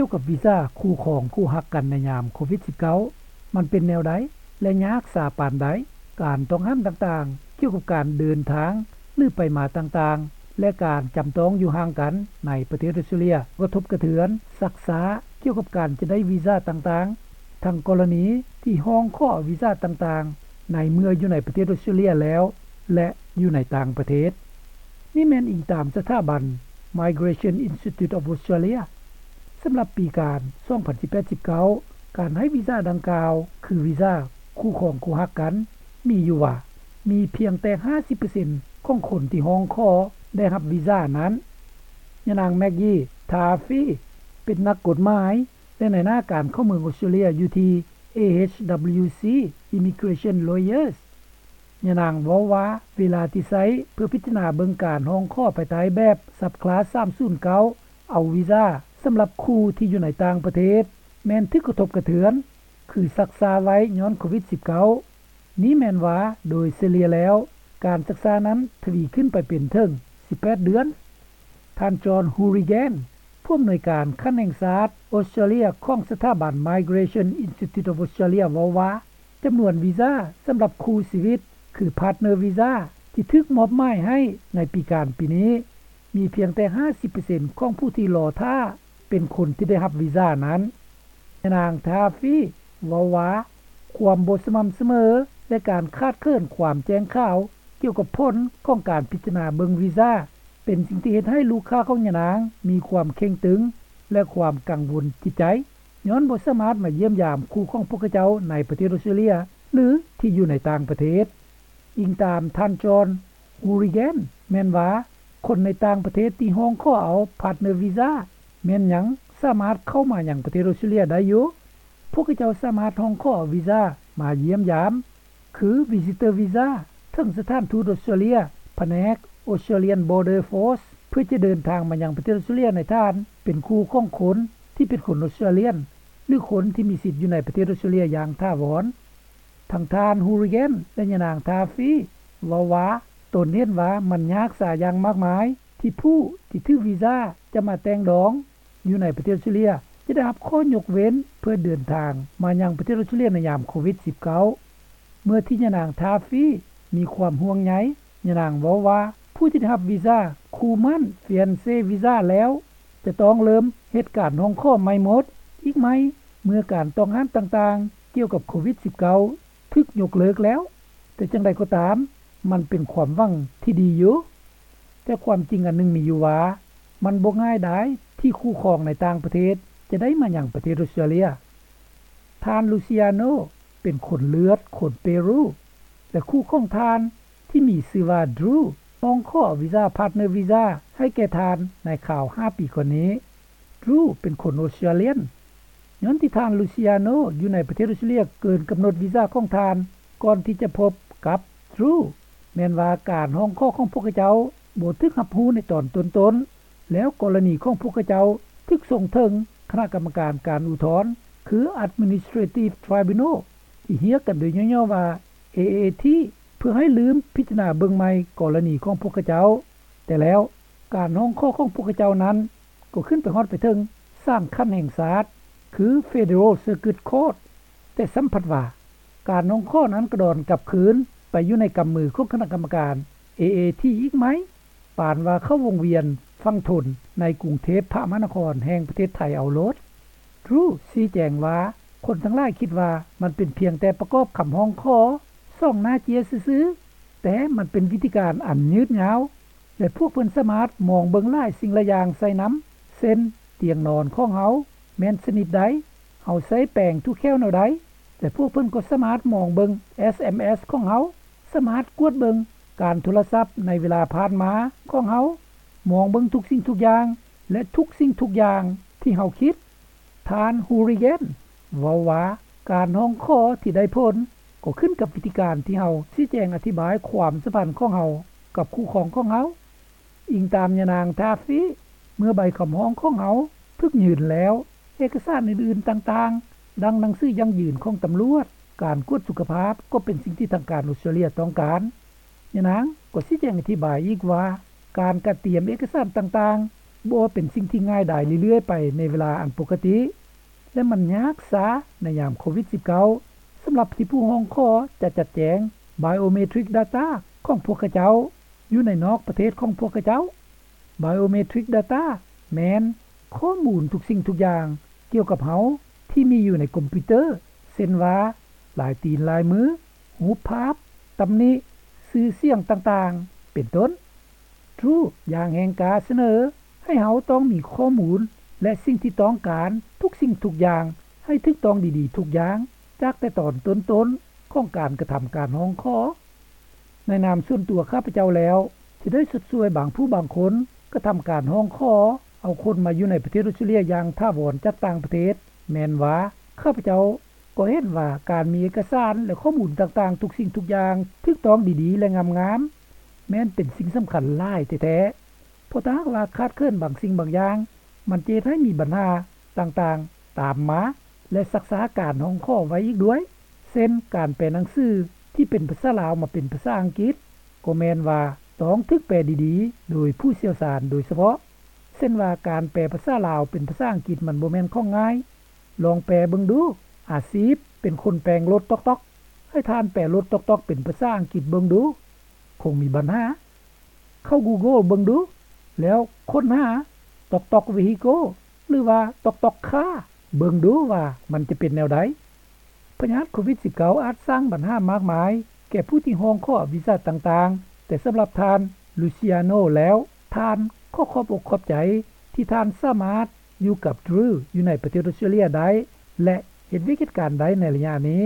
ກ່ຽວກັບວີຊາຄູ່ຄອງຄູ່ຮັກກັນໃນຍາມໂຄວິດ-19 ມັນເປັນແນວໃດ ແລະ ຍາກສາປານໃດ? ການຕ້ອງຫ້າມຕ່າງໆ ກ່ຽວກັບການເດີນທາງ ຫຼື ໄປມາຕ່າງໆ ແລະ ການຈຳຕ້ອງຢູ່ຫ່າງກັນໃນປະເທດອົດສະຕຣາເລຍ ກະທົບກະເທືອນຊັກຊ້າກ່ຽວກັບການຈະໄດ້ວີຊາຕ່າງໆ ທັງກໍລະນີທີ່ຮ້ອງຂໍເອົາວີຊາຕ່າງໆ ໃນເມື່ອຢູ່ໃນປະເທດອົດສະຕຣາເລຍແລ້ວ ແລະ ຢູ່ໃນຕ່າງປະເທດ. ນີ້ແມ່ນອີງຕາມສະຖາບັນ Migration Institute of Australia. ສຳລັບປີການ ສອງພັນສິບແປດ ສິບເກົ້າ ການໃຫ້ວີຊາດັ່ງກ່າວ ຄືວີຊາຄູ່ຄອງຄູ່ຮັກກັນ ມີຢູ່ວ່າ ມີພຽງແຕ່ ຫ້າສິບເປີເຊັນ ຂອງຄົນທີ່ຮ້ອງຂໍໄດ້ຮັບວີຊານັ້ນ. ຍານາງ Maggie Taaffe ເປັນນັກກົດໝາຍ ແລະ ນາຍໜ້າການເຂົ້າເມືອງອົດສະຕຣາເລຍຢູ່ທີ່ A H W C Immigration Lawyers. ຍານາງເວົ້າວ່າ ເວລາທີ່ໃຊ້ເພື່ອພິຈາລະນາເບິ່ງການຮ້ອງຂໍພາຍໃຕ້ແບບ Subclass ສາມສູນເກົ້າ ເອົາວີຊາສຳລັບຄູ່ທີ່ຢູ່ໃນຕ່າງປະເທດ ແມ່ນຖືກກະທົບກະເທືອນ ຄືຊັກຊ້າໄວ້ຍ້ອນໂຄວິດ-19. ນີ້ແມ່ນວ່າໂດຍສະເລ່ຍແລ້ວ ການຊັກຊ້ານັ້ນທະວີຂຶ້ນໄປເປັນເຖິງ ສິບແປດເດືອນ. ທ່ານ John Hourigan ຜູ້ອຳນວຍການຂັ້ນແຫ່ງຊາດອົດສະຕຣາເລຍຂອງສະຖາບັນ Migration Institute of Australia ເວົ້າວ່າ ຈຳນວນວີຊາສຳລັບຄູ່ຊີວິດ ຄື Partner Visa ທີ່ຖືກມອບໝາຍໃຫ້ໃນປີການປີນີ້ ມີພຽງແຕ່ ຫ້າສິບເປີເຊັນ ຂອງຜູ້ທີ່ລໍຖ້າເປັນຄົນທີ່ໄດ້ຮັບວີຊານັ້ນ. ຍານາງ Taaffe ເວົ້າວ່າ ຄວາມບໍ່ສະໝ່ຳສະເໝີ ແລະ ການຂາດເຂີນຄວາມແຈ້ງຂ່າວກ່ຽວກັບຜົນຂອງການພິຈາລະນາເບິ່ງວີຊາ ເປັນສິ່ງທີ່ເຮັດໃຫ້ລູກຄ້າຂອງຍານາງມີຄວາມເຄັ່ງຕຶງ ແລະ ຄວາມກັງວົນຈິດໃຈ ຍ້ອນບໍ່ສາມາດມາຢ້ຽມຢາມຄູ່ຂອງພວກເຂົາເຈົ້າໃນປະເທດອົດສະຕຣາເລຍ ຫຼື ທີ່ຢູ່ໃນຕ່າງປະເທດ. ອີງຕາມທ່ານ John Hourigan ແມ່ນວ່າ ຄົນໃນຕ່າງປະເທດທີ່ຮ້ອງຂໍເອົາ Partner Visa ແມ່ນຍັງສາມາດເຂົ້າມາຍັງປະເທດອົດສະຕຣາເລຍໄດ້ຢູ່. ພວກເຂົາເຈົ້າສາມາດຮ້ອງຂໍເອົາວີຊາມາຢ້ຽມຢາມ ຄື Visitor Visa ເຖິງສະຖານທູດອົດສະຕຣາເລຍ ພະແນກ Australian Border Force ເພື່ອຈະເດີນທາງມາຍັງປະເທດອົດສະຕຣາເລຍໃນຖານເປັນຄູ່ຂອງຄົນທີ່ເປັນຄົນອົດສະຕຣາເລຍນ ຫຼື ຄົນທີ່ມີສິດຢູ່ໃນປະເທດອົດສະຕຣາເລຍຢ່າງຖາວອນ. ທັງທ່ານ Hourigan ແລະ ຍານາງ Taaffe ເວົ້າວ່າ ຕົນເຫັນວ່າມັນຍາກສາຢ່າງມາກມາຍ ທີ່ຜູ້ທີ່ຖືກວີຊາຈະມາແຕ່ງດອງຢູ່ໃນປະເທດອົດສະຕຣາເລຍ ຈະໄດ້ຮັບຂໍ້ຍົກເວັ້ນເພື່ອເດີນທາງມາຍັງປະເທດອົດສະຕຣາເລຍໃນຍາມໂຄວິດ-19. ເມື່ອທີ່ຍານາງ Taaffe ມີຄວາມຫ່ວງໃຍ, ຍານາງເວົ້າວ່າ ຜູ້ທີ່ໄດ້ຮັບວີຊາຄູ່ໝັ້ນ Fiancé Visa ແລ້ວ ຈະຕ້ອງເລີ່ມເຮັດການຮ້ອງຂໍໃໝ່ໝົດອີກໃໝ່ ເມື່ອການຕ້ອງຫ້າມຕ່າງໆກ່ຽວກັບໂຄວິດ-19 ຖືກຍົກເລີກແລ້ວ. ແຕ່ຈັ່ງໃດກໍຕາມ, ມັນເປັນຄວາມຫວັງທີ່ດີຢູ່. ແຕ່ຄວາມຈິງອັນໜຶ່ງມີຢູ່ວ່າ ມັນບໍ່ງ່າຍດາຍທີ່ຄູ່ຄອງໃນຕ່າງປະເທດຈະໄດ້ມາຍັງປະເທດອົດສະຕຣາເລຍ. ທ່ານ Luciano ເປັນຄົນເລືອດຄົນເປຣູ ແລະ ຄູ່ຂອງທ່ານທີ່ມີຊື່ວ່າ Drew ຮ້ອງຂໍວີຊາ Partner Visa ໃຫ້ແກ່ທ່ານໃນຄາວຫ້າປີກ່ອນນີ້. Drew ເປັນຄົນອົດສະຕຣາເລຍນ. ຍ້ອນທີ່ທ່ານ Luciano ຢູ່ໃນປະເທດອົດສະຕຣາເລຍເກີນກຳນົດວີຊາຂອງທ່ານ ກ່ອນທີ່ຈະພົບກັບ Drew ແມ່ນວ່າການຮ້ອງຂໍຂອງພວກເຂົາເຈົ້າບໍ່ຖືກຮັບຮູ້ໃນຕອນຕົ້ນໆ ແລ້ວກໍລະນີຂອງພວກເຂົາເຈົ້າຖືກສົ່ງເຖິງຄະນະກຳມະການການອຸທອນ ຄື Administrative Tribunal ທີ່ຮຽກກັນໂດຍຫຍໍ້ໆວ່າ A A T ເພື່ອໃຫ້ລືມພິຈາລະນາເບິ່ງໃໝ່ກໍລະນີຂອງພວກເຂົາເຈົ້າ. ແຕ່ແລ້ວ ການຮ້ອງຂໍຂອງພວກເຂົາເຈົ້ານັ້ນ ກໍຂຶ້ນໄປຮອດໄປເຖິງສານຂັ້ນແຫ່ງຊາດ ຄື Federal Circuit Court, ແຕ່ຊ້ຳພັດວ່າ ການຮ້ອງຂໍນັ້ນກະດອນກັບຄືນໄປຢູ່ໃນກຳມືຂອງຄະນະກຳມະການ A A T ອີກໃໝ່, ປານວ່າເຂົ້າວົງວຽນຝັ່ງທົນໃນກຸງເທບພະມະຫານະຄອນແຫ່ງປະເທດໄທເອົາໂລດ. Drew ຊີ້ແຈງວ່າ ຄົນທັງຫຼາຍຄິດວ່າມັນເປັນພຽງແຕ່ປະກອບຄຳຮ້ອງຂໍສອງໜ້າເຈ້ຍຊື່ໆ, ແຕ່ມັນເປັນວິທີການອັນຍືດຍາວ ແລະ ພວກເພິ່ນສາມາດມອງເບິ່ງຫຼາຍສິ່ງຫຼາຍຢ່າງໃສ່ນຳ ເຊັ່ນ ຕຽງນອນຂອງເຮົາແມ່ນຊະນິດໃດ, ເຮົາໃຊ້ແປງຖືແຂ້ວແນວໃດ ແລະ ພວກເພິ່ນກໍສາມາດມອງເບິ່ງ S M S ຂອງເຮົາ, ສາມາດກວດເບິ່ງການໂທລະສັບໃນເວລາຜ່ານມາຂອງເຮົາ, ມອງເບິ່ງທຸກສິ່ງທຸກຢ່າງ ແລະ ທຸກສິ່ງທຸກຢ່າງທີ່ເຮົາຄິດ. ທ່ານ Hourigan ເວົ້າວ່າ ການຮ້ອງຂໍທີ່ໄດ້ຜົນກໍຂຶ້ນກັບວິທີການທີ່ເຮົາຊີ້ແຈງອະທິບາຍຄວາມສຳພັນຂອງເຮົາກັບຄູ່ຄອງຂອງເຮົາ. ອີງຕາມຍານາງ Taaffe, ເມື່ອໃບຄຳຮ້ອງຂອງເຮົາຖືກຍື່ນແລ້ວ, ເອກະສານອື່ນໆຕ່າງໆ ດັ່ງໜັງສືຢັ້ງຢືນຂອງຕຳຫຼວດ, ການກວດສຸຂະພາບ ກໍເປັນສິ່ງທີ່ທາງການອົດສະຕຣາເລຍຕ້ອງການ. ຍານາງກໍຊີ້ແຈງອະທິບາຍອີກວ່າ ການກະຕຽມເອກະສານຕ່າງໆ ບໍ່ເປັນສິ່ງທີ່ງ່າຍດາຍເລື້ອຍໆໄປໃນເວລາອັນປົກກະຕິ ແລະ ມັນຍາກຊ້າໃນຍາມໂຄວິດ-ສິບເກົ້າ ສຳລັບທີ່ຜູ້ຮ້ອງຂໍຈະຈັດແຈງ Biometric Data ຂອງພວກເຂົາເຈົ້າ ຢູ່ໃນນອກປະເທດຂອງພວກເຂົາເຈົ້າ. Biometric Data ແມ່ນຂໍ້ມູນທຸກສິ່ງທຸກຢ່າງກ່ຽວກັບເຮົາທີ່ມີຢູ່ໃນຄອມພິວເຕີ ເຊັ່ນວ່າ ລາຍຕີນລາຍມື, ຮູບພາບ, ຕຳນິ, ຊື່ສຽງຕ່າງໆ ເປັນຕົ້ນ. Drew ຢ່າງແຮງກ້າສະເໜີໃຫ້ເຮົາຕ້ອງມີຂໍ້ມູນ ແລະ ສິ່ງທີ່ຕ້ອງການທຸກສິ່ງທຸກຢ່າງໃຫ້ຖືກຕ້ອງດີໆທຸກຢ່າງ ຈາກແຕ່ຕອນຕົ້ນໆຂອງການກະທຳການຮ້ອງຂໍ. ໃນນາມສ່ວນຕົວຂ້າພະເຈົ້າແລ້ວ ທີ່ໄດ້ຊົດຊ່ວຍບາງຜູ້ບາງຄົນກະທຳການຮ້ອງຂໍເອົາຄົນມາຢູ່ໃນປະເທດອົດສະຕຣາເລຍຢ່າງຖາວອນຈາກຕ່າງປະເທດ ແມ່ນວ່າຂ້າພະເຈົ້າກໍເຫັນວ່າການມີເອກະສານ ແລະ ຂໍ້ມູນຕ່າງໆທຸກສິ່ງທຸກຢ່າງຖືກຕ້ອງດີໆ ແລະ ງາມໆ ແມ່ນເປັນສິ່ງສຳຄັນຫຼາຍແທ້ໆ ເພາະຖ້າຫາກວ່າຂາດເຂີນບາງສິ່ງບາງຢ່າງ ມັນຈະເຮັດໃຫ້ມີບັນຫາຕ່າງໆຕາມມາ ແລະ ຊັກຊ້າການຮ້ອງຂໍໄວ້ອີກດ້ວຍ ເຊັ່ນ ການແປໜັງສືທີ່ເປັນພາສາລາວມາເປັນພາສາອັງກິດ ກໍແມ່ນວ່າຕ້ອງຖືກແປດີໆໂດຍຜູ້ຊ່ຽວຊານໂດຍສະເພາະ ເຊັ່ນວ່າການແປພາສາລາວເປັນພາສາອັງກິດມັນບໍ່ແມ່ນຂອງງ່າຍ. ລອງແປເບິ່ງດູ ອາຊີບເປັນຄົນແປງລົດຕ໋ອກໆ ໃຫ້ທ່ານແປລົດຕ໋ອກໆເປັນພາສາອັງກິດເບິ່ງດູ ຄົງມີບັນຫາ. ເຂົ້າ Google ເບິ່ງດູ ແລ້ວຄົ້ນຫາ ຕ໋ອກໆ vehicle ຫຼືວ່າ ຕ໋ອກໆ car ເບິ່ງດູວ່າມັນຈະເປັນແນວໃດ. ພະຍາດໂຄວິດ-ສິບເກົ້າ ອາດສ້າງບັນຫາມາກມາຍແກ່ຜູ້ທີ່ຮ້ອງຂໍວີຊາຕ່າງໆ, ແຕ່ສຳລັບທ່ານ Luciano ແລ້ວ, ທ່ານຂໍຂອບອົກຂອບໃຈທີ່ທ່ານສາມາດຢູ່ກັບ Drew ຢູ່ໃນປະເທດອົດສະຕຣາເລຍໄດ້ ແລະ ເຮັດວຽກເຮັດການໄດ້ໃນໄລຍະນີ້.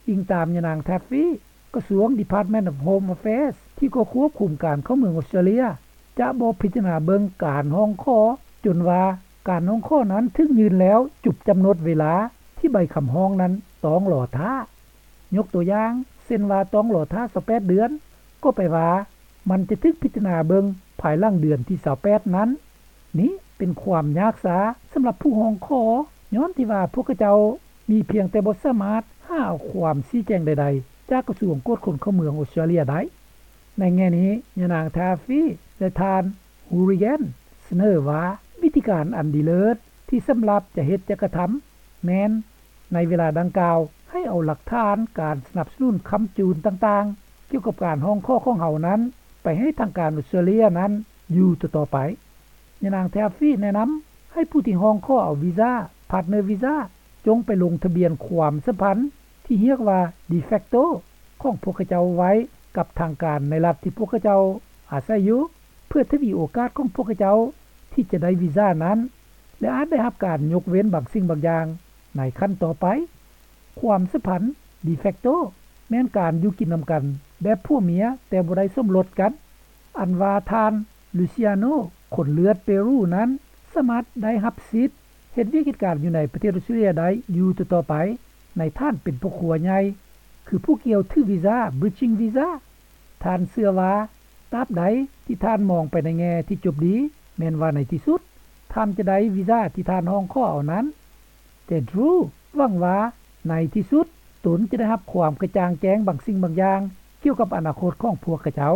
ອີງຕາມຍານາງ Taffy, ກະຊວງ Department of Home Affairs ທີ່ກໍຄວບຄຸມການເຂົ້າເມືອງອົດສະຕຣາເລຍ ຈະບໍ່ພິຈາລະນາເບິ່ງການຮ້ອງຂໍຈົນວ່າການຮ້ອງຂໍນັ້ນຖືກຍື່ນແລ້ວຈົບກຳນົດເວລາທີ່ໃບຄຳຮ້ອງນັ້ນຕ້ອງລໍຖ້າ. ຍົກຕົວຢ່າງ ເຊັ່ນວ່າຕ້ອງລໍຖ້າຊາວແປດເດືອນ, ກໍແປວ່າມັນຈະຖືກພິຈາລະນາເບິ່ງພາຍຫຼັງເດືອນທີຊາວແປດນັ້ນ. ນີ້ເປັນຄວາມຍາກຊ້າສຳລັບຜູ້ຮ້ອງຂໍ ຍ້ອນທີ່ວ່າພວກເຂົາເຈົ້າມີພຽງແຕ່ບໍ່ສາມາດຫາເອົາຄວາມຊີ້ແຈງໃດໆຈາກກະຊວງກວດຄົນເຂົ້າເມືອງອົດສະຕຣາເລຍໄດ້. ໃນແງ່ນີ້, ຍານາງ Taffy ແລະ ທ່ານ Hourigan ສະເໜີວ່າ ວິທີການອັນດີເລີດທີ່ສຳລັບຈະເຮັດຈະກະທຳ ແມ່ນໃນເວລາດັ່ງກ່າວ ໃຫ້ເອົາຫຼັກຖານການສະໜັບສະໜູນຄ້ຳຈູນຕ່າງໆ ກ່ຽວກັບການຮ້ອງຂໍຂອງເຮົານັ້ນ ໄປໃຫ້ທາງການອົດສະຕຣາເລຍນັ້ນຢູ່ຕໍ່ໆໄປ. ຍານາງ Taffy ແນະນຳໃຫ້ຜູ້ທີ່ຮ້ອງຂໍເອົາວີຊາ Partner Visa ຈົ່ງໄປລົງທະບຽນຄວາມສຳພັນທີ່ຮຽກວ່າ de facto ຂອງພວກເຂົາເຈົ້າໄວ້ກັບທາງການໃນລັດທີ່ພວກເຂົາເຈົ້າອາໄສຢູ່ ເພື່ອທະວີໂອກາດຂອງພວກເຂົາເຈົ້າທີ່ຈະໄດ້ວີຊານັ້ນ ແລະ ອາດໄດ້ຮັບການຍົກເວັ້ນບາງສິ່ງບາງຢ່າງໃນຂັ້ນຕໍ່ໄປ. ຄວາມສຳພັນ de facto ແມ່ນການຢູ່ກິນນຳກັນແບບຜົວເມຍແຕ່ບໍ່ໄດ້ສົມລົດກັນ ອັນວ່າທ່ານ Luciano ຄົນເລືອດເປຣູນັ້ນ ສາມາດໄດ້ຮັບສິດເຮັດວຽກເຮັດການຢູ່ໃນປະເທດອົດສະຕຣາເລຍໄດ້ຢູ່ຕໍ່ໆໄປ ໃນຖານເປັນພໍ່ຄົວໃຫຍ່ ຄືຜູ້ກ່ຽວຖືວີຊາ Bridging Visa. ທ່ານເຊື່ອວ່າ ຕາບໃດທີ່ທ່ານມອງໄປໃນແງ່ທີ່ຈົບດີ ແມ່ນວ່າໃນທີ່ສຸດ ທ່ານຈະໄດ້ວີຊາທີ່ທ່ານຮ້ອງຂໍເອົານັ້ນ. ແຕ່ Drew ຫວັງວ່າໃນທີ່ສຸດ ຕົນຈະໄດ້ຮັບຄວາມກະຈ່າງແຈ້ງບາງສິ່ງບາງຢ່າງກ່ຽວກັບອະນາຄົດຂອງພວກເຂົາເຈົ້າ.